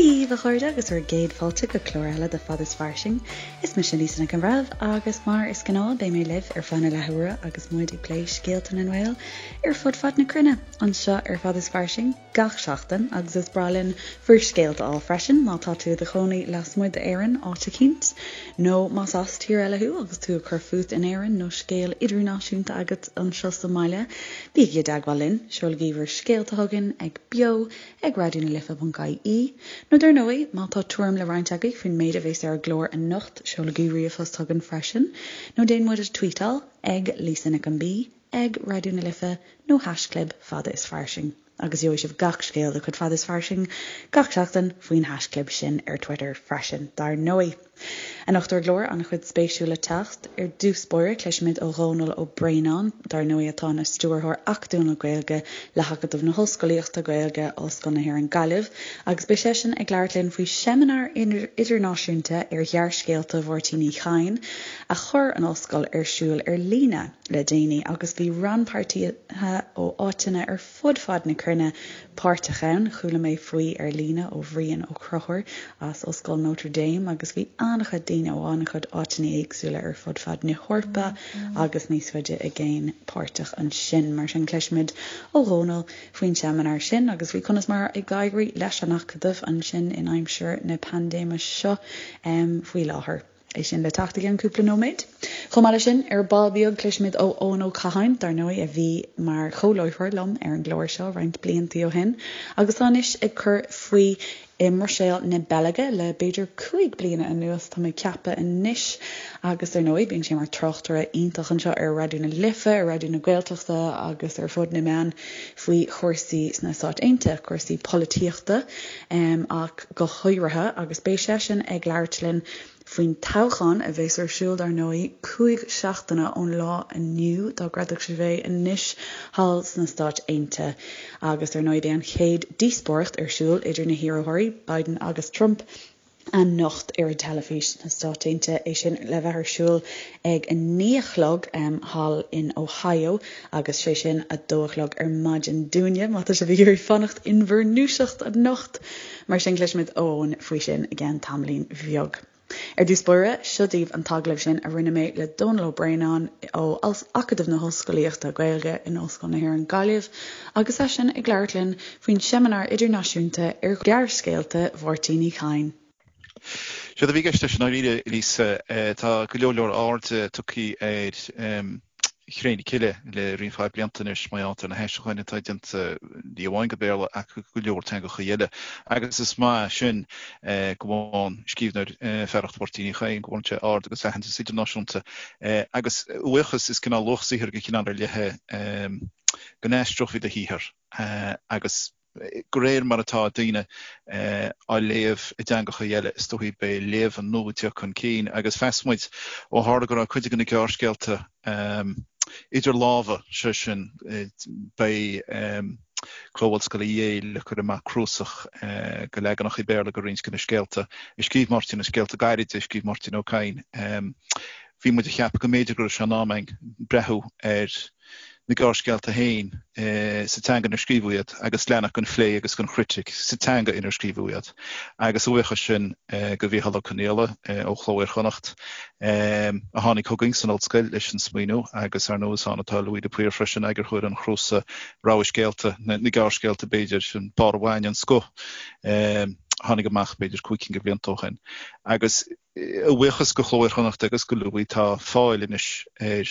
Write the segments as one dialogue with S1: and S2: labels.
S1: Dia daoibh a chairde agus bhur gcéad fáilte go clár eile de Fad is Fairsing. Is mise Lisa Nic an Bhreithimh agus mar is gnáth beidh mé libh ar feadh na leathuaire agus muid ag plé scéalta na nGael ar fud fad na cruinne anseo ar Fad is Fairsing gach seachtain agus is breá linn bhur scéalta a fháil freisin má tá tú i do chónaí lasmuigh d'Éirinn áit eicínt nó más as tír eile thú agus tú ag cur fút in Éirinn nó scéal idirnáisiúnta agat anseo sa mbaile bígí i dteagmháil linn, seolaigí bhur scéalta chugainn ag beo ag raidionalife.ie, nó dar ndóigh, má tá tuairim le roinnt agaibh faoin méid a bheas ar an gclár anocht, seolaigí ríomhphost chugainn freisin, nó déan muid a tweetáil ag Lisa Nic an B, ag Raidió na Life nó haischlib Fada is Fairsing. Agus gheobhaidh sibh gach scéal de chuid Fada is Fairsing gach seachtain faoin haischlib sin ar Twitter freisin, dar ndóigh. Anocht ar an gclár, an-chuid spéisiúil le teacht. Ar dtús báire, cloisfimid ó Dhónall Ó Braonáin, dar ndóigh atá ina Stiúrthóir Acadúil na Gaeilge le hAcadamh na hOllscolaíochta Gaeilge, Ollscoil na hÉireann Gaillimh, agus beidh seisean ag labhairt linn faoi sheimineár idirnáisiúnta ar ghearrscéalta Mháirtín Uí Chadhain a chuir an Ollscoil ar siúl ar líne le déanaí agus bhí rannpháirtithe ó áiteanna ar fud fad na cruinne páirteach ann. Chuala mé faoi ar líne ó Bhrian Ó Conchúir as Ollscoil Notre Dame agus bhí an-chuid daoine ó an-chuid áiteanna éagsúla ar fud fad na hEorpa agus níos faide i gcéin páirteach ansin. Mar sin cloisfimid ó Dhónall faoin seimineár sin agus faoi conas mar ag éirí leis an Acadamh ansin in aimsir na paindéime seo faoi láthair. É sin le teacht i gceann cúpla nóiméad. Chomh maith leis sin, ar ball beag, cloisfimid ó Eoin Ó Catháin, dar ndóigh, a bhí mar chomhláithreoir liom ar an gclár seo roinnt bliantaí ó shin agus atá anois ag cur faoi i mBruiséil na Beilge le b'fhéidir 5 bliana anuas, tá mé ag ceapadh anois. Agus dar ndóigh, bíonn sé mar tráchtaire iontach anseo ar Raidió na Life, ar Raidió na Gaeltachta agus ar fud na meán faoi chúrsaí sna Stáit Aontaithe, cúrsaí polaitíochta ach go háirithe, agus beidh seisean ag labhairt linn faoin toghchán a bheas ar siúl, dar ndóigh, 5 seachtaine ón lá inniu, dá gcreidfeadh sibh é, anois thall sna Stáit Aontaithe. Agus dar ndóigh, beidh an chéad díospóireacht ar siúl idir na hiarrthóirí, Biden agus Trump, anocht ar an teilifís sna Stáit Aontaithe, é sin le bheith ar siúl ag 9 a chlog thall in Ohio agus sé sin 2 a chlog ar maidin dúinne, má tá sibh ag iarraidh fanacht in bhur ndúiseacht anocht. Mar sin cloisfimid ó Eoin faoi sin i gceann tamaillín bheag. Ar dtús báire, seo daoibh an t-agallamh sin a rinne mé le Dónall Ó Braonáin ó Acadamh na hOllscolaíochta Gaeilge in Ollscoil na hÉireann Gaillimh agus eisean ag labhairt linn faoin seimineár idirnáisiúnta ar ghearrscéalta Mháirtín Uí Chadhain.
S2: Séard a bhí i gceist leis i ndáiríre, Lisa, tá go leor leor airde tugtha ar Chré na Cille le roinnt mhaith blianta anois mar gheall ar na haistriúcháin atá déanta ní amháin go Béarla ach go leor teangacha eile. Agus is maith sin go bhfaigheann scríbhneoir fearacht Mháirtín Uí Chadhain, go bhfaigheann sé aird agus aitheantas idirnáisiúnta. Agus a bhuíochas, is cineál luach saothair de chineál ar leith é go n-aistreofaí do shaothar agus de réir mar atá daoine á léamh i dteangacha eile, is dóichí beidh léamh nua ag teacht chun cinn agus mheas muid, ó tharla go raibh cuid de na gearrscéalta idir lámha, sé sin, beidh Cló Ollscoile Yale ag cur amach cnuasach de leaganacha Béarla de roinnt de na scéalta a scríobh Máirtín, na scéalta gairide a scríobh Máirtín Ó Cadhain. Bhí muid ag ceapadh go mb'fhéidir go raibh sé in am againn breathnú ar na gearrscéalta féin sa teanga inar scríobhadh iad agus leanacht den phlé agus den chritic sa teanga inar scríobhadh iad. Agus a bhuíochas sin go Mhícheál Ó Conghaile ó Chló Iar-Chonnacht a tháinig chugainn san ollscoil leis an smaoineamh agus ar ndóigh is ann atá Louis de Paor freisin, eagarthóir an chnuasaigh Rogha Scéalta, na gearrscéalta b'fhéidir, an barr an bhainne, an scoth a tháinig amach b'fhéidir 5 cinn de bhlianta ó shin. Agus A bhuíochas go Chló Iar-Chonnacht agus go Louis tá fáil anois ar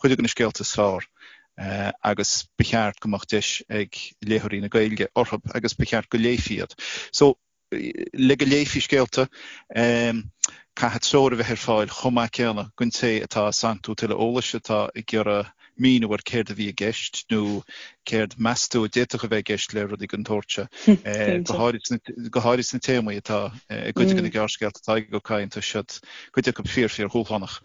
S2: chuid de na scéalta is fearr agus ba cheart go mbeadh deis ag léitheoirí na Gaeilge orthu agus ba cheart go léifí iad. So, le go léifí scéalta, caithfidh treoir a bheith ar fáil chomh maith céanna don té atá ag santú tuilleadh eolais, atá ag iarraidh míniú ar céard a bhí i gceist nó céard meas tú a d'fhéadfadh a bheith i gceist le rudaí den tsórt seo, go háirid sna téamaí atá i gcuid de na gearrscéalta atá ag Ó Cadhain, tá siad, cuid acu fíor, fíor-dhúshlánach.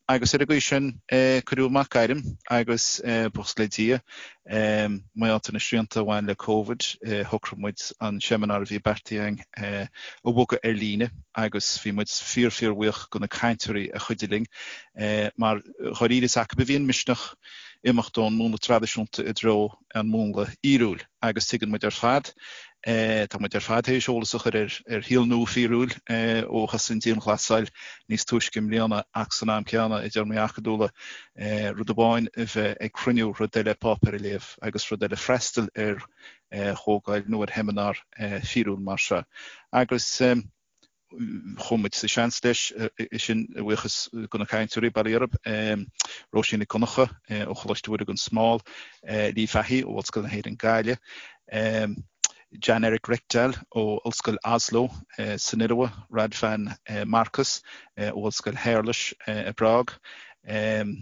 S2: Agus ar an gcaoi sin, cuireadh amach gairm agus, buíochas le Dia, mar gheall ar na srianta a bhain le Covid, shocraigh muid an seimineár a bhí beartaithe againn a bhogadh ar líne agus bhí muid fíor, fíor-bhuíoch de na cainteoirí a chuidigh linn mar dháiríre is acu a bhí an misneach imeacht ón múnla traidisiúnta i dtreo an múnla fhíorúil agus tuigeann muid ar fad. Tá muid ar fad théis eolas a chur ar shaol nua fíorúil ó thosaigh an dianghlasáil níos túisce i mbliana ach san am céanna, i dtéarmaí acadúla, rud amháin a bheith ag cruinniú, rud eile páipéar a léamh agus rud eile freastal ar chomhdháil nó ar sheimineár fíorúil mar seo. Agus. Chuaigh muid sa seans leis sin a bhuíochas do na cainteoirí, bail ó Dhia orthu, Róisín Nic Dhonncha ó Choláiste Mhuire gan Smál, Lee Fahy ó Ollscoil na hÉireann Gaillimh, Jan Erik Rekdal ó Ollscoil Oslo san Iorua, Radvan Markus ó Ollscoil Shéarlais i bPrág,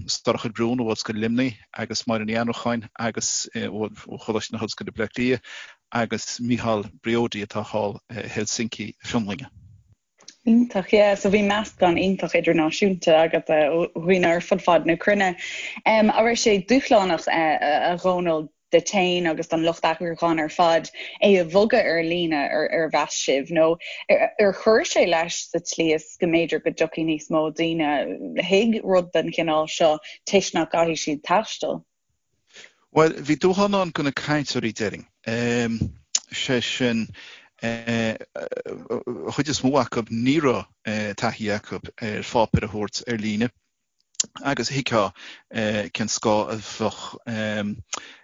S2: Sorcha de Brún ó Ollscoil Luimnigh agus Máire Ní Annracháin agus ó Choláiste na hOllscoile Bleá Cliath agus Michal Briody atá thall i Helsinki na Fionlainne.
S1: Iontach, yeah. So bhí meascán iontach idirnáisiúnta agat ó dhaoine ar fud fad na cruinne. An raibh sé dúshlánach, a Dhónaill, duit féin agus don lucht eagrúcháin ar fad é a bhogadh ar líne ar mheas sibh nó ar chuir sé leis sa tslí is go mb'fhéidir go dtiocfaidh níos mó daoine chuig rud den chineál seo toisc nach gcaithfidh siad taisteal?
S2: Bhuel, bhí dúshlán ann do na cainteoirí, déarfainn. Sé sin, an chuid is mó acu, ní raibh taithí acu ar pháipéar a thabhairt ar líne agus thuigfeá cén scáth a bheadh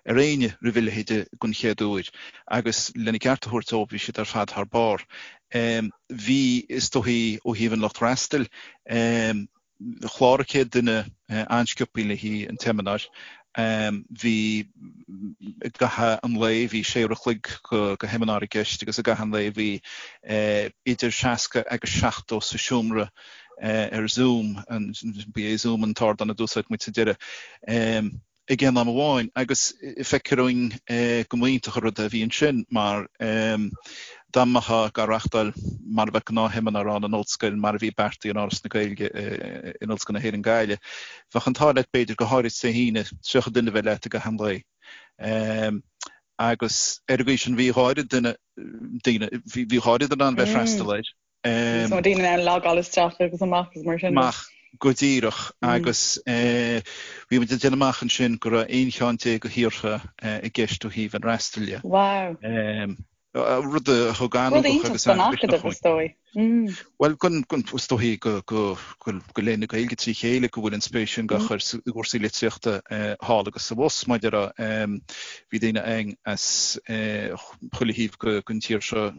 S2: ar éinne roimh a leithéid den chéad uair. Agus lena gceart a thabhairt dóibh, bhí siad ar fad thar barr. Bhí, is dóichí, ó thaobh an lucht freastail, Chláraigh 100 duine an-sciobthaí le haghaidh an tseimineáir. Bhí i gcaitheamh an lae, bhí sé uair a chloig de sheimineár i gceist agus i gcaitheamh an lae bhí idir 60 agus 70 sa seomra ar Zoom, ba é Zoom an t-ardán a d'úsáid muid sa deireadh. ag aon am amháin agus feictear dúinn go mba iontach an rud é a bhí ansin mar dá mbeifeá á reachtáil mar a bheadh gnáthsheimineár ann in ollscoil mar a bhí beartaithe in Áras na Gaeilge in Ollscoil na hÉireann Gaillimh, bheadh an t-ádh leat b'fhéidir, go háirid Dé hAoine, 30 duine a bheith leat i gcaitheamh an lae. Agus ar an gcaoi sin bhí dhá oiread duine, daoine, bhí dhá oiread in ann bheith ag freastal air.
S1: Níos mó daoine in ann logáil isteach agus amach agus mar sin.
S2: Amach go díreach agus bhí muid ag déanamh amach ansin go raibh 11 cheann de thíortha i gceist ó thaobh an fhreastail
S1: de. Wow.
S2: Rud a thug an-ugach agus
S1: an-mhisneach is dóigh.
S2: Bhuel, is dóigh go léann na Gaeilge trí chéile go bhfuil an spéis sin á chur i gcúrsaí litríochta thall agus abhus, mar a déarfá. Bhí daoine againn as chuile thaobh den tír seo,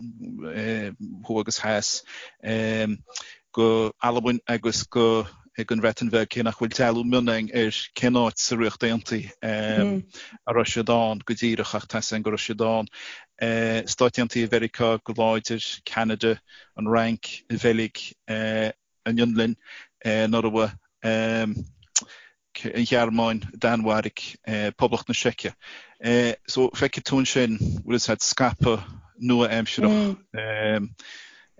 S2: thuaidh agus theas, go Albain agus go an Bhreatain Bheag, cé nach bhfuil dealú mion againn ar cén áit sa Ríocht Aontaithe a raibh siad ann go díreach, ach tá 'fhios againn go raibh siad ann. Stáit Aontaithe Mheiriceá go láidir, Ceanada, an Fhrainc, an Bheilg, an Fhionlainn, an Iorua, an Ghearmáin, Danmhairg, Poblacht na Seice. So feicfidh tú ansin, bhfuil fhios a'd, scaipeadh nua-aimsearach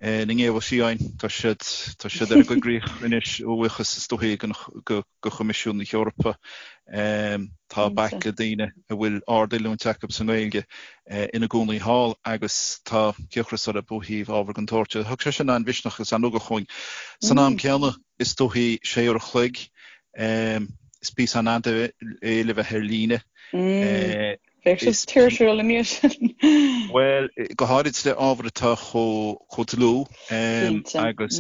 S2: na nGéabha Fiáin, tá siad, tá siad ar an gcoigríoch anois a bhuíochas is dóichí go Choimisiún na hEorpa. Tá baicle daoine a bhfuil ard-oiliúint acu sa nGaeilge ina gcónaí thall agus tá cíocras orthu ó thaobh ábhar den tsórt seo. Thug sé sin an-mhisneach agus an-ugach dhúinn. San am céanna, is dóichí sé uair a chloig, is píosa an-fhada é le bheith ar líne.
S1: Bheadh sé tuirsiúil anois.
S2: Bhuel, go háirid le ábhar atá chomh dlúth agus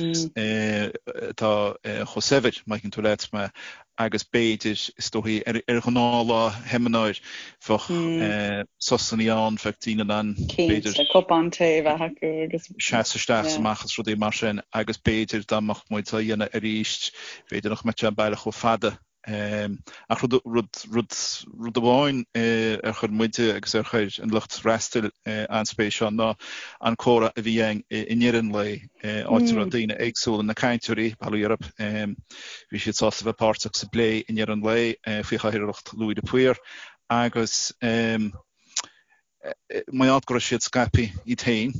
S2: atá chomh saibhir, má thuigeann tú leat mé, agus b'fhéidir, is dóichí, ar ghnáthlá sheimineáir, bheadh sosanna ann, bheadh daoine in ann,
S1: b'fhéidir. Cinnte, cupán tae a bheith acu
S2: agus. Seasamh isteach is amach agus rudaí mar sin agus b'fhéidir dá mbeadh muid á dhéanamh arís, b'fhéidir nach mbeadh sé baileach chomh fada. Ach rud, rud, rud, rud amháin ar chuir muide agus ar chuir an lucht freastail an-spéis ann ná an comhrá a bhí againn i ndeireadh an lae, áit a raibh daoine éagsúla, na cainteoirí, bail ó Dhia orthu, bhí siad sásta bheith páirteach sa bplé i ndeireadh an lae faoi chathaoirleacht Louis de Paor agus mar gheall go raibh siad scaipthe iad féin,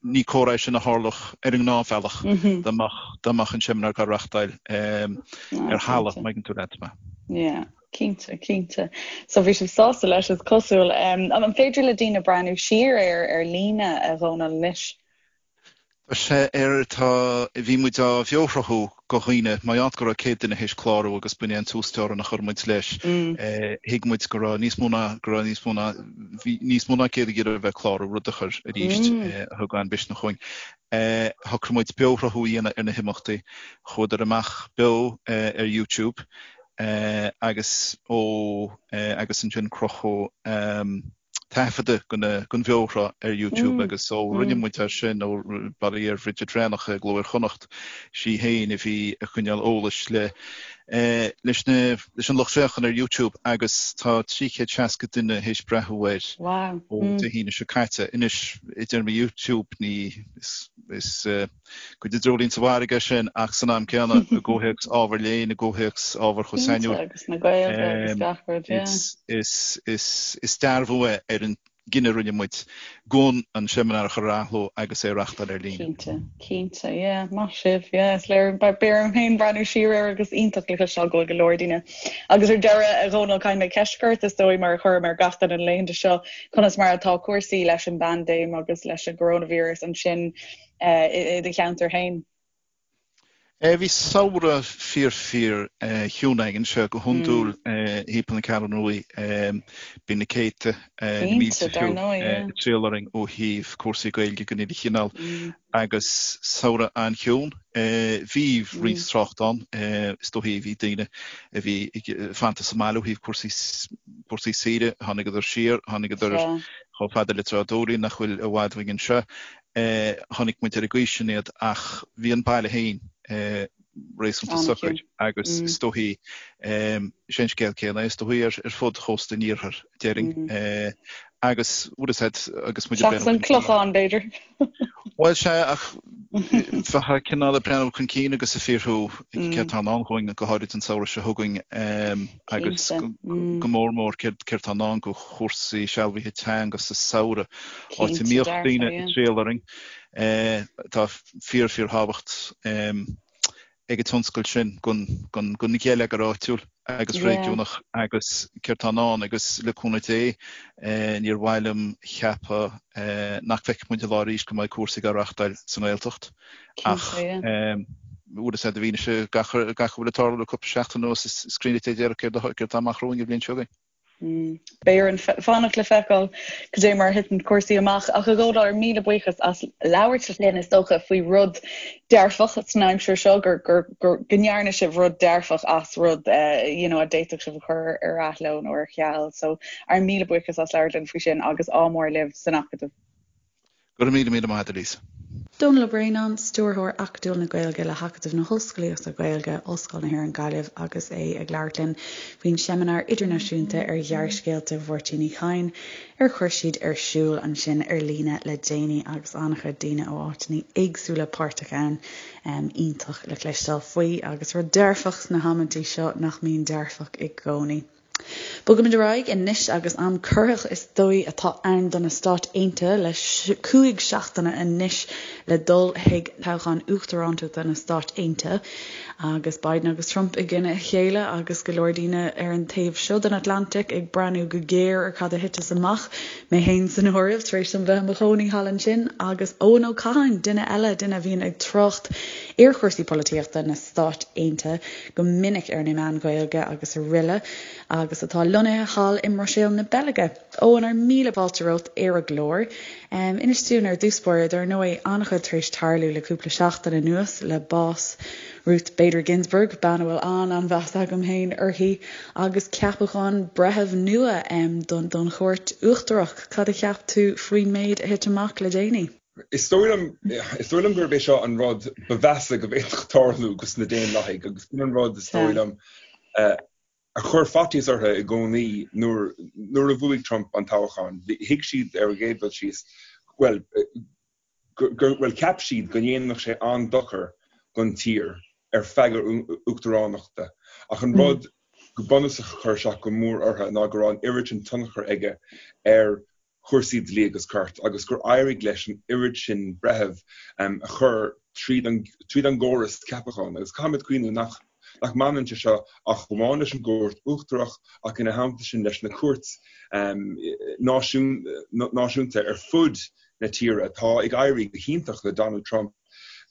S2: ní comhrá é sin a tharlódh ar an ngnáthbhealach dá mbeadh dá mbeadh an seimineár á reachtáil ar thalamh, má thuigeann tú leat
S1: mé. Yeah, cinnte, cinnte. So bhí sibh sásta leis, is cosúil. An féidir le daoine breathnú siar air ar líne, a Dhónaill, anois?
S2: Tá sé ar, tá, bhí muid á bheoshruthú go dhaoine, mar gheall go raibh 100 duine théis clárú agus b'in é an t-uasteorainn a chuir muid leis. Thuig muid go raibh níos mó ná, go raibh níos mó ná, bhí níos mó ná 100 ag iarraidh a bheith ag clárú, rud a chuir arís, a thug an-mhisneach dhúinn. Shocraigh muid beoshruthú a dhéanamh ar na himeachtaí. Chuadar amach beo ar YouTube agus ó, agus ansin crochadh, taifeadadh den bheoshruth ar YouTube agus ó rinne muid é sin, ó bail ó Dhia ar Bhridget Bhreathnach i gCló Iar-Chonnacht, sí féin a bhí ag coinneáil eolais le leis na leis an lucht féachana ar YouTube agus tá 360 duine théis breathnú air ó Dé hAoine seo caite. Anois, i dtéarmaí YouTube ní is is Cuid de dreoilín sa bhfarraige é sin ach san am céanna, i gcomhthéacs ábhar léinn, i gcomhthéacs ábhar chomh sainiúil,
S1: Cinnte, agus na Gaeilge agus gach rud, yeah.
S2: is, is, is dearbhú é ar an gcinneadh a rinne muid gan an seimineár a chur ar athló agus é a reáchtáil ar líne.
S1: Cinnte, cinnte, yeah, maith sibh, yeah, is léir, beidh orm féin breathnú siar air agus iontach le cloisteáil go bhfuil go leor daoine. Agus ar deireadh, a Dhónaill, caithfidh mé ceist a chur ort, is dóigh, mar a chuirim ar gach duine na laethanta seo, conas mar atá cúrsaí leis an bpaindéim agus leis an gcoróinvíreas ansin i do cheantar féin?
S2: Bhí samhradh fíor fíor chiúin againn anseo go hiondúil thimpeall na Ceathrún Ruaidh. Bíonn na céadta, na mílte fiú, ag triall orainn ó thaobh cúrsaí Gaeilge den uile chineál agus samhradh an-chiúin. Bhí roinnt trácht ann, is dóichí bhí daoine a bhí fanta sa mbaile ó thaobh cúrsaí saoire, tháinigeadar siar, tháinigeadar chomh fada le Trá Dúlaí nach bhfuil i bhfad uainn anseo. Chonaic muid ar an gcaoi sin iad ach bhí an baile féin réasúnta socair agus is dóichí, is é an scéal céanna é is dóichí ar fud chósta an iarthair, déarfainn. Agus bhfuil a fhios agat agus
S1: muid ag breathnú. Seachas an Clochán, b'fhéidir.
S2: Bhuel, sea, ach bheifeá cineál ag breathnú chun cinn agus ag fiafraí céard atá i ndán dhúinn, go háirid an samhradh seo chugainn agus go mór mór céard atá i ndán do chúrsaí sealbhaithe teanga sa samhradh, áit a mbíodh daoine ag triall orainn. Tá fíor, fíorthábhacht ag an tionscal sin don gheilleagar áitiúil agus réigiúnach agus céard tá i ndán agus le cúnamh Dé níor mhaith liom cheapadh nach bhfeicfidh muid an lá arís go mbeidh cúrsaí á reáchtáil sa nGaeltacht ach bhfuil a fhios agat i bhfianaise gach a bhfuil ag tarlú le cúpla seachtain anuas is cruinne Dé déarfadh céard atá amach romhainn an bhliain seo chugainn.
S1: Beidh orainn fanacht le feiceáil cad é mar a thiteann cúrsaí amach. Ach a Dhónaill, ár míle buíochas as labhairt linn is dócha faoi rud dearfach san aimsir seo, gur, gur, gur, go ndearna sibh rud dearfach as rud you know, a d'fhéadfadh sibh a chur ar athló nó ar ceal. So ár míle buíochas as labhairt linn faoi sin agus ádh mór libh san Acadamh.
S2: Go raibh míle míle maith agat, a Lisa.
S1: Dónall Ó Braonáin, Stiúrthóir Acadúil na Gaeilge le hAcadamh na hOllscolaíochta Gaeilge, Ollscoil na hÉireann Gaillimh agus é ag labhairt linn faoin Seimineár Idirnáisiúnta ar Ghearrscéalta Mháirtín Uí Chadhain ar chuir siad ar siúl ansin ar líne le déanaí agus an-chuid daoine ó áiteanna éagsúla páirteach ann. Iontach le cloisteáil faoi agus rud dearfach sna hamantaí seo nach mbíonn dearfach i gcónaí. Bogaimid ar aghaidh anois agus am corraitheach is dóigh atá ann do na Stáit Aontaithe le 5 seachtaine anois le dul chuig toghchán uachtarántachta na Stáit Aontaithe agus Biden agus Trump i gcoinne a chéile agus go leor daoine ar an taobh seo den Atlantic ag breathnú go géar ar cad a thiteas amach, mé féin san áireamh, tar éis dom bheith i mo chónaí thall ansin agus Eoin Ó Catháin, duine eile, duine a bhíonn ag trácht ar chúrsaí polaitíochta na Stáit Aontaithe go minic ar na meáin Ghaeilge agus aroile, agus atá lonnaithe thall i mBruiséil na Beilge. Eoin, ár míle fáilte romhat ar an gclár. Inis dúinn ar dtús báire, dar ndóigh, an-chuid tar éis tarlú le cúpla seachtain anuas le bás Ruth Bader Ginsburg, bean a bhfuil an-an-mheas agam féin uirthi, agus ceapachán breitheamh nua don Chúirt Uachtarach. Cad a cheap tú faoin méid a thit amach le déanaí?
S3: Is dóigh liom, is dóigh liom gurb é seo an rud ba mheasa go bhféadfadh tarlú dos na Daonlathaigh agus sin an rud is dóigh liom a chuir faitíos orthu i gcónaí nuair, nuair a bhuaigh Trump an toghchán. Thuig siad ar an gcéad dul síos, bhuel, gur, bhuel, cheap siad go ndéanfadh sé an-dochar don tír ar feadh a uachtaránachta ach an rud go bunúsach a chuir isteach go mór orthu ná go raibh an oiread sin tionchar aige ar chúrsaí dlí agus cirt agus gur éirigh leis an oiread sin breitheamh a chur tríd an tríd an gcóras ceapacháin. Agus caithfimid cuimhniú nach nach mbaineann sé seo ach amháin leis an gCúirt Uachtarach ach ina theannta sin leis na cúirt náisiúnta ar fud na tíre. Tá ag éirí go hiontach le Donald Trump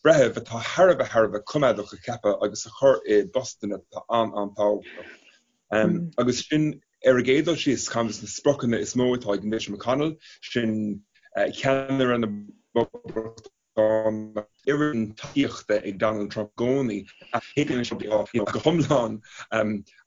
S3: breithimh atá thar a bheith thar a bheith coimeádach a cheapadh agus a chur i bpostanna atá an-an-tábhachtach. Agus sin ar an gcéad dul síos ceann de na spriocanna is mó atá ag Mitch McConnell, sin ceannaire na bPoblachtánach. Tá an oiread tacaíochta ag Donald Trump i gcónaí, cé go mbíonn sé go hiomlán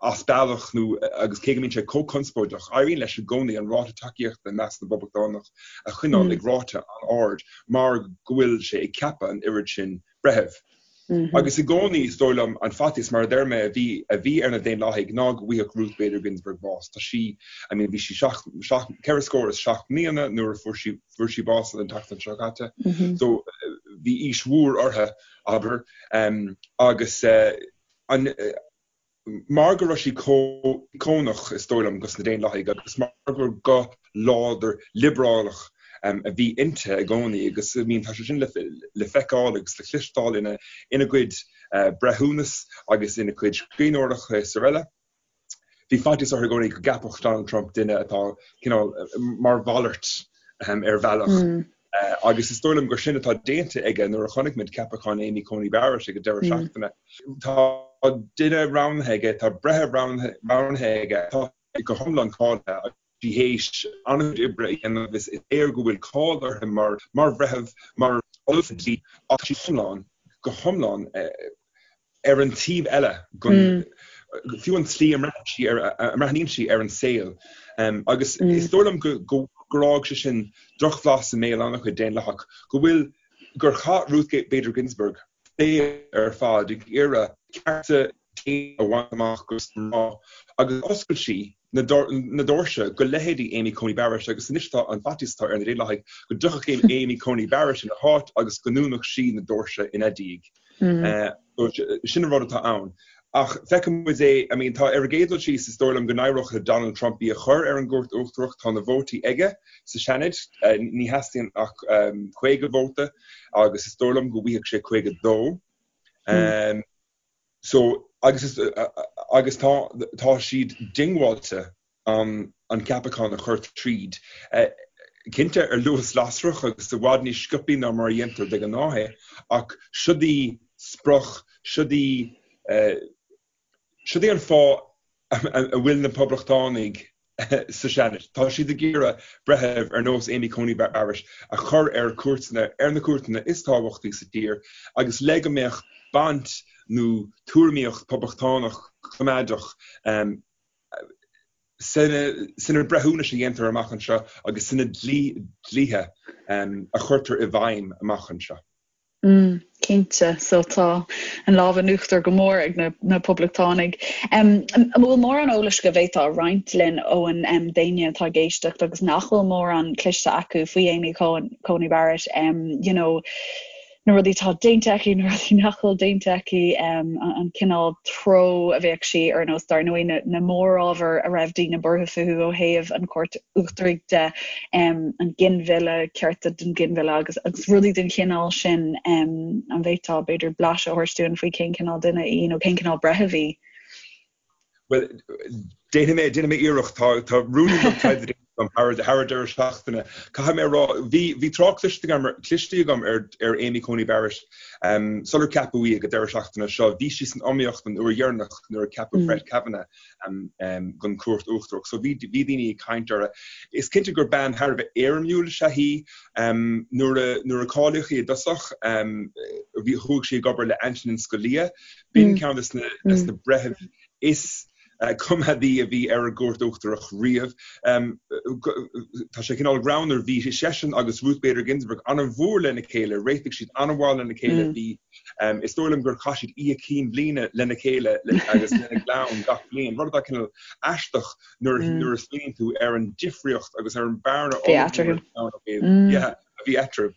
S3: as bealach nó agus cé go mbíonn sé chomh conspóideach, éiríonn leis i gcónaí an ráta tacaíochta i measc na bPoblachtánach a choinneáil ag ráta an-ard mar go bhfuil sé ag ceapadh an oiread sin breitheamh. Agus i gcónaí, is dóigh liom, an faitíos, mar a deir mé, a bhí a bhí ar na Daonlathaigh ná go bhfaigheadh Ruth Bader Ginsburg bás. Tá sí, I mean, bhí sí seacht, seacht, 74 mbliana nuair a fuair sí, fuair sí bás an tseachtain seo caite. So, bhí aois mhór uirthi, abair. Agus an, Mar go raibh sí chomh íocónach, is dóigh liom, dos na Daonlathaigh agus mar gur guth láidir liobrálach a bhí inti i gcónaí agus I mean tá sé sin le feiceáil agus le cloisteáil ina ina cuid breithiúnas agus ina cuid scríbhneoireachta is araile. Bhí faitíos orthu i gcónaí go gceapfadh Donald Trump duine atá cineál mar mhalairt ar bhealach. Agus is dóigh liom gur sin atá déanta aige nuair a chonaic muid ceapachán Amy Coney Barrett ag an deireadh seachtaine. Tá duine roghnaithe aige, tá breitheamh roghnaithe aige atá go hiomlán cáilithe agus tá sí théis an-chuid oibre a dhéanamh. Is léir go bhfuil cáil uirthi mar bhreitheamh, mar ollamh dlí ach tá sí iomlán, go hiomlán ar an taobh eile den, fiú an tslí a mbreathnaíonn sí ar an saol. Agus is dóigh liom gur fhág sé sin drochbhlas i mbéal an-chuid Daonlathach, go bhfuil, gur chaith Ruth Bader Ginsburg a saol ar fad ag iarraidh cearta daonna a bhaint amach dos na mná agus d'oscail sí na doirse go leithéidí Amy Coney Barrett agus anois tá an faitíos atá ar na Daonlathaigh go dtiocfadh Amy Coney Barrett ina háit agus go ndúnfadh sí na doirse ina diaidh. Sin an rud atá ann. Ach feicfidh muid é, I mean tá ar an gcéad dul síos is dóigh liom go n-éireodh le Donald Trump í a chur ar an gCúirt Uachtarach, tá na vótaí aige sa Seanad, ní theastaíonn ach 50 vóta agus is dóigh liom go bhfaighidh sé 52. So, agus is, agus tá, tá siad diongbháilte an, an ceapachán a chur tríd. Cinnte, ar luas lasrach agus i bhfad níos sciobthaí ná mar a dhéantar de ghnáth é, ach siod í sprioc, siod í, siod í an fáth a bhfuil na Poblachtánaigh sa Seanad. Tá siad ag iarraidh breithimh ar nós Amy Coney Barrett a chur ar cúirteanna, ar na cúirteanna is tábhachtaí sa tír agus le go mbeadh baint nó tuairimíocht poblachtánach coimeádach sna breithiúnais a dhéantar amach anseo agus sna dlíthe a chuirtear i bhfeidhm amach anseo.
S1: Mm, cinnte. So tá an lámh in uachtar go mór ag na, na Poblachtánaigh. Um, an bhfuil mórán eolais go bhféadfá a roinnt linn Eoin um, d'éinne atá ag éisteacht agus nach bhfuil mórán cloiste acu faoi Amy Coney Barrett, um, you know, na rudaí atá déanta aici, na rudaí nach bhfuil déanta aici, um, an cineál treo a bheadh sí ar nós dar ndóigh na, na mórábhair a raibh daoine buartha fúthu ó thaobh an Chúirt Uachtaraigh de, um, an ginmhilleadh, cearta don ghinmhilleadh agus, agus rudaí den chineál sin, um, an bhféadfá b'fhéidir blaiseadh a thabhairt dúinn faoi cén cineál duine í nó cén cineál breitheamh í?
S3: Bhuel, déanfaidh mé, déanfaidh mé iarracht. Tá, tá ruainnín beag taighde déanta agam thar, thar an deireadh seachtaine. Caithfidh mé a rá, bhí, bhí trácht cliste agam, cliste agam ar, ar Amy Coney Barrett um, sular ceapadh í ag an deireadh seachtaine seo. Bhí sí san iomaíocht an uair dheireanach nuair a ceapadh mm. Brett Kavanaugh don Chúirt Uachtarach. So bhí daoine ag caint uirthi. Is cinnte gur bean thar a bheith éirimiúil is ea í. Nuair a nuair a cáilíodh í i dtosach, bhí chuaigh sí ag obair le Antonin Scalia. B'in ceann de na breithimh is coimeádaí a bhí ar an gCúirt Uachtarach riamh. Tá sé cineál greannmhar, bhí seisean agus Ruth Bader Ginsburg an-mhór lena chéile, réitigh siad an-mhaith lena chéile, bhí Is dóigh liom gur chaith siad oíche cinn bhliana lena chéile agus lena gclann gach bliain, rud atá cineál aisteach nuair nuair a smaoiníonn tú ar an difríocht agus ar an bhearna ollmhór a bhí eatarthu.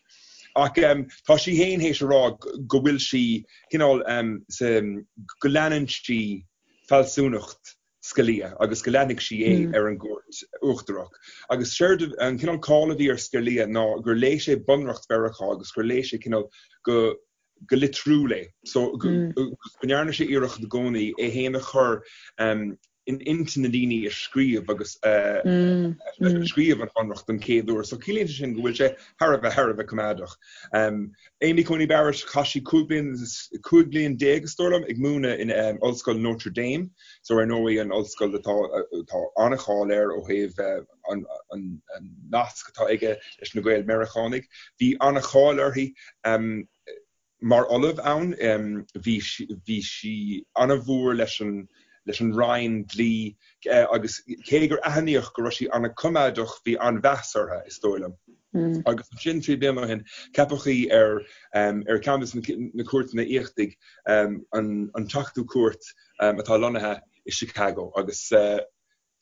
S3: Ach tá sí féin théis a rá go bhfuil sí cineál go leanann sí fealsúnacht Scalia agus go leanfaidh sí é ar an gCúirt Uachtarach. Agus séard an cineál cáil a bhí ar Scalia ná gur léigh sé Bunreacht Mheiriceá agus gur léigh sé cineál go. go litriúil é. So go ndearna sé iarracht i gcónaí é féin a chur in intinn na ndaoine a scríobh agus a scríobh an Bhunreacht don chéad uair. So ciallaíonn sé sin go bhfuil sé thar a bheith thar a bheith coimeádach. Amy Coney Barrett, chaith sí 15 bliain 15 bliain is dóigh liom ag múineadh in Ollscoil Notre Dame, so ar ndóigh an ollscoil atá atá an-cháil air ó thaobh an nasc atá aige leis na Gael-Meiriceánaigh. Bhí an-cháil uirthi mar ollamh ann. Bhí bhí sí an-mhór leis an leis an Roinn Dlí agus cé gur aithníodh go raibh sí an-choimeádach bhí an-mheas uirthi, is dóigh liom. Agus ansin trí bliana ó shin ceapadh í ar ar ceann de na cúirteanna íochtaigh, an an tSeachtú Cúirt atá lonnaithe i Chicago agus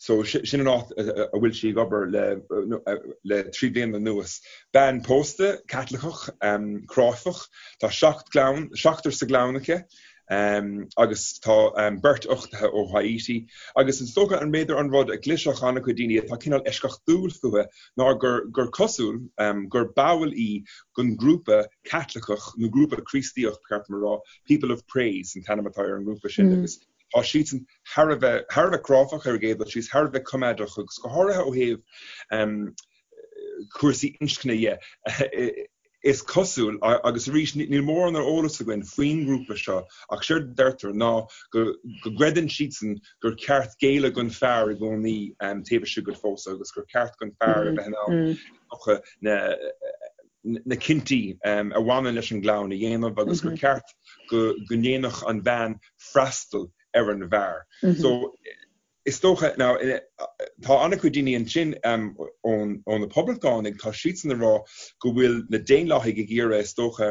S3: So sin an áit a bhfuil sí ag obair le 3 bliana anuas. Bean pósta, Caitliceach, cráifeach. Tá seacht gclann, seachtar sa gclann aici agus tá beirt uchtaithe ó Haiti. Agus is dócha an b'fhéidir an rud a chlisfeadh an-chuid daoine atá cineál eisceachtúil fúithi ná gur gur cosúil gur ball í den ghrúpa Caitliceach nó grúpa Críostaíoch, ba cheart dom a rá, People of Praise an t-ainm atá ar an ngrúpa sin agus Tá siadsan thar a bheith, thar a bheith cráifeach ar an gcéad dul síos, thar a bheith coimeádach agus go háirithe ó thaobh cúrsaí inscne dhe. Is cosúil, agus arís níl mórán ar eolas againn faoin ngrúpa seo, ach séard a deirtear ná go gcreideann siadsan gur ceart géilleadh don fear i gcónaí taobh istigh den phósadh agus gur ceart don fear a bheith in ann dócha na na cinntí a bhaineann leis an gclann a dhéanamh agus gur ceart go ndéanfadh an bhean freastal ar an bhfear. So is dócha, now tá an-chuid daoine ansin ó na Poblachtánaigh, tá siadsan ag rá go bhfuil na Daonlathaigh ag iarraidh, is dócha,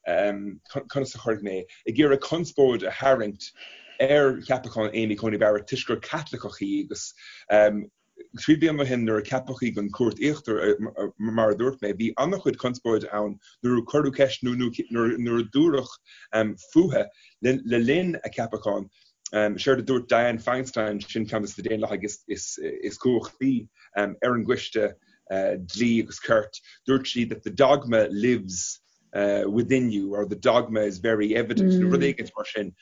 S3: conas a chuirfidh mé é, ag iarraidh conspóid a tharraingt ar cheapachán Amy Coney Barrett toisc gur Caitliceach í agus Trí bliana ó shin nuair a ceapadh í don Chúirt Íochtar, mar a dúirt mé, bhí an-chuid conspóide ann nuair a cuireadh ceist nó nuair a dúradh fúithi le linn a ceapacháin. Séard a dúirt Dianne Feinstein, sin ceann de na Daonlathaigh is cumhachtaí ar an gCoiste Dlí agus Cirt, dúirt sí that the dogma lives within you or the dogma is very evident nó rud éigin mar sin.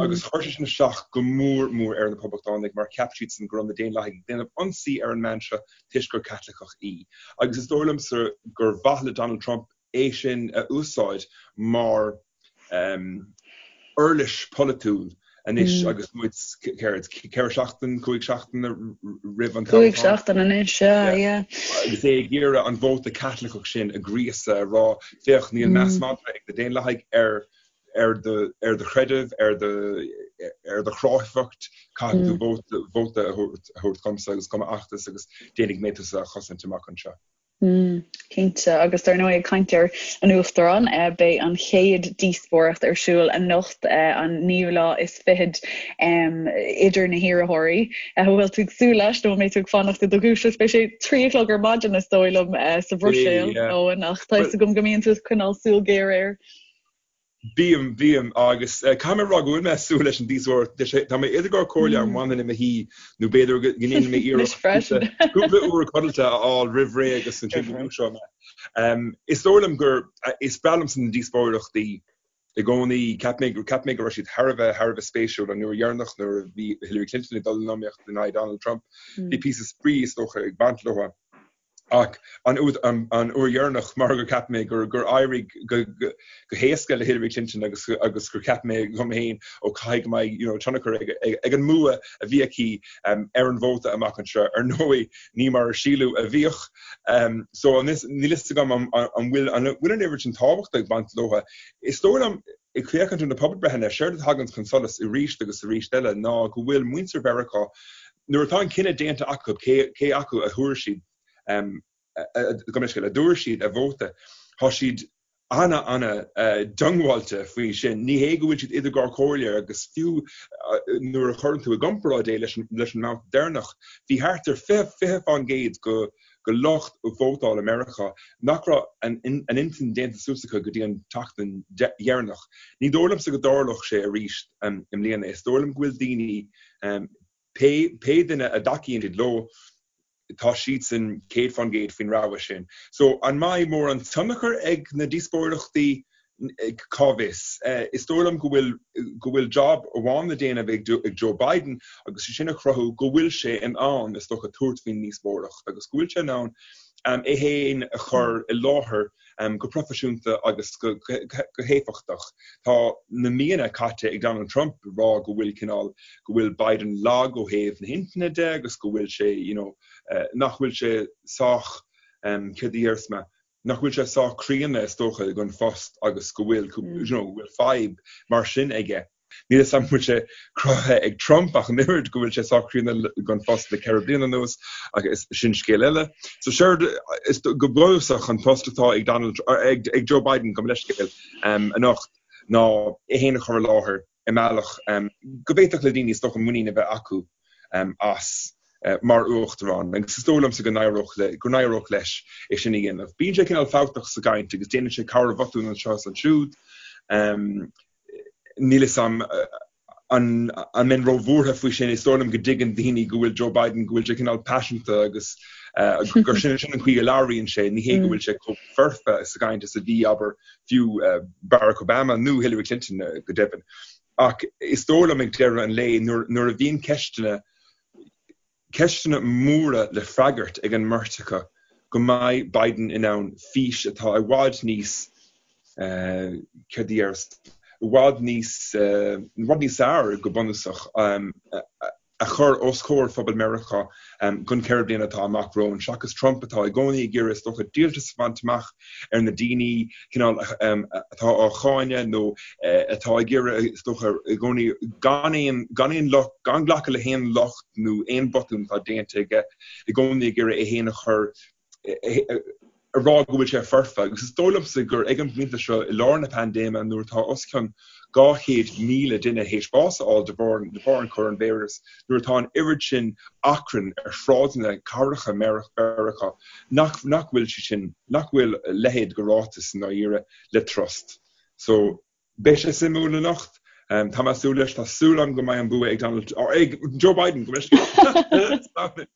S3: Agus chuir sé sin isteach go mór mór ar na Poblachtánaigh mar cheap siadsan go raibh na Daonlathaigh ag déanamh ionsaí ar an mbean seo toisc gur Caitliceach í. Agus is dóigh liomsa gur mhaith le Donald Trump é sin a úsáid mar uirlis pholaitiúil anois agus muid, céard, ceithre seachtain, cúig seachtaine roimh an
S1: toghchán. Cúig seachtain anois, sea, yeah.
S3: Agus é ag iarraidh an vóta Caitliceach sin a ghríosadh, a rá, féach, níl meas madra ag na Daonlathaigh ar ar do ar do chreideamh, ar do ar do chráifeacht, caithfidh tú vóta vóta a thabhairt dhomsa agus do m'fheachtas agus déanfaidh mé tusa a chosaint amach anseo.
S1: Cinnte, agus dar ndóigh ag caint ar an Uachtarán, beidh an chéad díospóireacht ar siúl anocht, an naoú lá is fichead, idir na hiarrthóirí. An bhfuil tú ag súil leis nó an mbeidh tú ag fanacht i do dhúiseacht? Beidh sé trí a chlog ar maidin is dóigh liom sa Bhruiséil, Eoin, ach tá fhios agam go mbíonn tú ag coinneáil súil ghéar air.
S3: Bím, bím, agus caithfidh mé a rá go bhfuil mé ag súil leis an díospóireacht. Tá mé idir dhá chomhairle an bhfanfainn i mo shuí nó b'fhéidir go ndéanfaidh mé iarracht cúpla uair codlata a fháil roimh ré agus ansin go ndúiseoidh mé. Is dóigh liom gur, is breá liomsa na díospóireachtaí i gcónaí. Cheap mé, cheap mé go raibh siad thar a bheith, thar a bheith spéisiúil an uair dheireanach nuair a bhí Hillary Clinton ag dul in iomaíocht in aghaidh Donald Trump. Bhí píosa spraoi is dócha ag baint leo. Ach an uair dheireanach, mar gur cheap mé gur éirigh go héasca le Hillary Clinton agus agus gur cheap mé dom féin, ó caithfidh go mbeidh you know tionchar ag an mbua a bhí aici ar an vóta amach anseo. Ar ndóigh, ní mar a síleadh a bhíodh. So níl fhios agam an bhfuil an bhfuil an oiread sin tábhachta ag baint leo. Is dóigh liom, ag féachaint ar na pobalbreitheanna, séard a thagann chun solais arís agus arís eile ná go bhfuil muintir Mheiriceá Nuair atá an cinneadh déanta acu cé acu a thabharfaidh siad, gabh mo leithscéal, a dtabharfaidh siad a vóta, tá siad ana-ana-diongbháilte faoi sin. Ní hé go bhfuil siad idir dhá chomhairle agus fiú nuair a chuireann tú i gcomparáid é leis an mbabhta deireanach, bhí thart ar 20% de lucht vótála Meiriceá nach raibh a n-intinn déanta suas acu go dtí an tseachtain dheireanach. Ní dóigh liomsa go dtarlódh sé arís i mbliana. Is dóigh liom go bhfuil daoine Pé duine a dtacaíonn siad leo, tá siadsan 100% faoin rogha sin. So, an mbeidh mórán tionchar ag na díospóireachtaí? Cá bhfios? Is dóigh liom go bhfuil go bhfuil job amháin le déanamh ag Joe Biden agus sé sin a chruthú go bhfuil sé in ann, is dócha, tabhairt faoin ndíospóireacht agus go bhfuil sé in ann é féin a chur i láthair go proifisiúnta agus go héifeachtach. Tá na míonna caite ag Donald Trump ag rá go bhfuil cineál, go bhfuil Biden lag ó thaobh na hintinne de agus go bhfuil sé, you know, nach bhfuil sé sách, céard a déarfas mé, nach bhfuil sé sách críonna is dócha don phost agus go bhfuil, you know, go bhfuil fadhb mar sin aige. Níl a fhios agam an bhfuil sé cruthaithe ag Trump ach an oiread go bhfuil sé sách críonna don phost le 4 bliana anuas ach is sin scéal eile. So séard is go bunúsach an post atá ag Donald ag ag Joe Biden gabh mo leithscéal anocht ná é féin a chur i láthair i mbealach go bhféadfadh le daoine is dócha muinín a bheith acu as mar uachtarán agus is dóigh liomsa go n-éireodh le, go n-éireodh leis é sin a dhéanamh. Bíonn sé cineál fabhtach sa gcaint agus déanann sé corrbhotún anseo is ansiúd. Níl a fhios agam an an mbeinn róbhuartha faoi sin. Is dóigh liom go dtuigeann daoine go bhfuil Joe Biden, go bhfuil sé cineál paiseanta agus gur sin sin an chaoi a labhraíonn sé. Ní hé go bhfuil sé chomh foirfe sa gcaint is a bhí, abair, fiú Barack Obama nó Hillary Clinton go deimhin. Ach is dóigh liom ag deireadh an lae nuair a bhíonn ceisteanna, ceisteanna móra le freagairt ag an mbeirt acu go mbeidh Biden in ann fís atá i bhfad níos, céard a déarfas, i bhfad níos, i bhfad níos fearr go bunúsach, a chur os comhair phobal Meiriceá don cheithre bliana atá amach romhainn, seachas Trump atá i gcónaí ag iarraidh is dócha díoltas a bhaint amach ar na daoine cineál atá á cháineadh nó atá ag iarraidh is dócha i gcónaí gan aon gan aon locht gan glacadh le haon locht nó aon bhotún atá déanta aige i gcónaí ag iarraidh é féin a chur a rá go bhfuil sé foirfe agus is dóigh liomsa gur ag an bpointe seo i lár na paindéime nuair atá os cionn 200,000 duine théis bás a fháil de bharr de bharr an choróinvíreas, nuair atá an oiread sin achrann ar shráideanna cathracha Mheiriceá nach nach bhfuil sé sin nach bhfuil a leithéid de ráiteas i ndáiríre le trust. So beidh sé suimiúil anocht. Tá mé ag súil leis, tá súil agam go mbeidh an bua ag Donald ag Joe Biden go mbeidh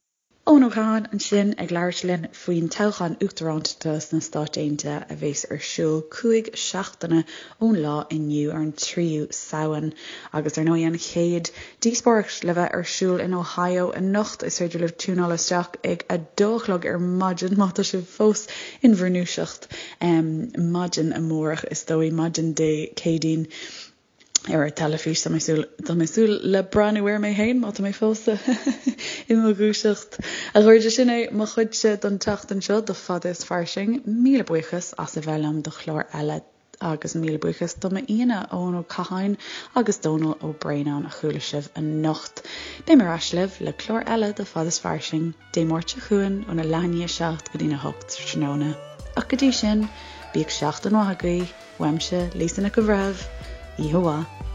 S1: Eoin Ó Catháin ansin ag labhairt linn faoin toghchán uachtarántachta sna Stáit Aontaithe a bheas ar siúl 5 seachtaine ón lá inniu ar an 3ú Samhain. Agus ar ndóigh an chéad díospóireacht le bheith ar siúl in Ohio anocht. Is féidir libh tiúnáil isteach ag 2 a chlog ar maidin má tá sibh fós in bhur ndúiseacht maidin amárach is dóigh, maidin Dé Céadaoin. ar an teilifís. Tá mé súil, tá mé súil le breathnú air mé féin má tá mé fós i mo dhúiseacht. A chairde, sin é mo chuidse don tseachtain seo de Fada is Fairsing. Míle buíochas as a bheith liom do chlár eile agus míle buíochas do m'aíonna, Eoin Ó Catháin agus Dónal Ó Braonáin a chuala sibh anocht. Beidh mé ar ais libh le clár eile de Fada is Fairsing Dé Máirt seo chugainn óna leath i ndiaidh a 7 go dtína 8 tráthnóna. Ach go dtí sin, bíodh seachtain mhaith agaibh! Uaimse, Lisa Nic an Bhreithimh, oíche mhaith.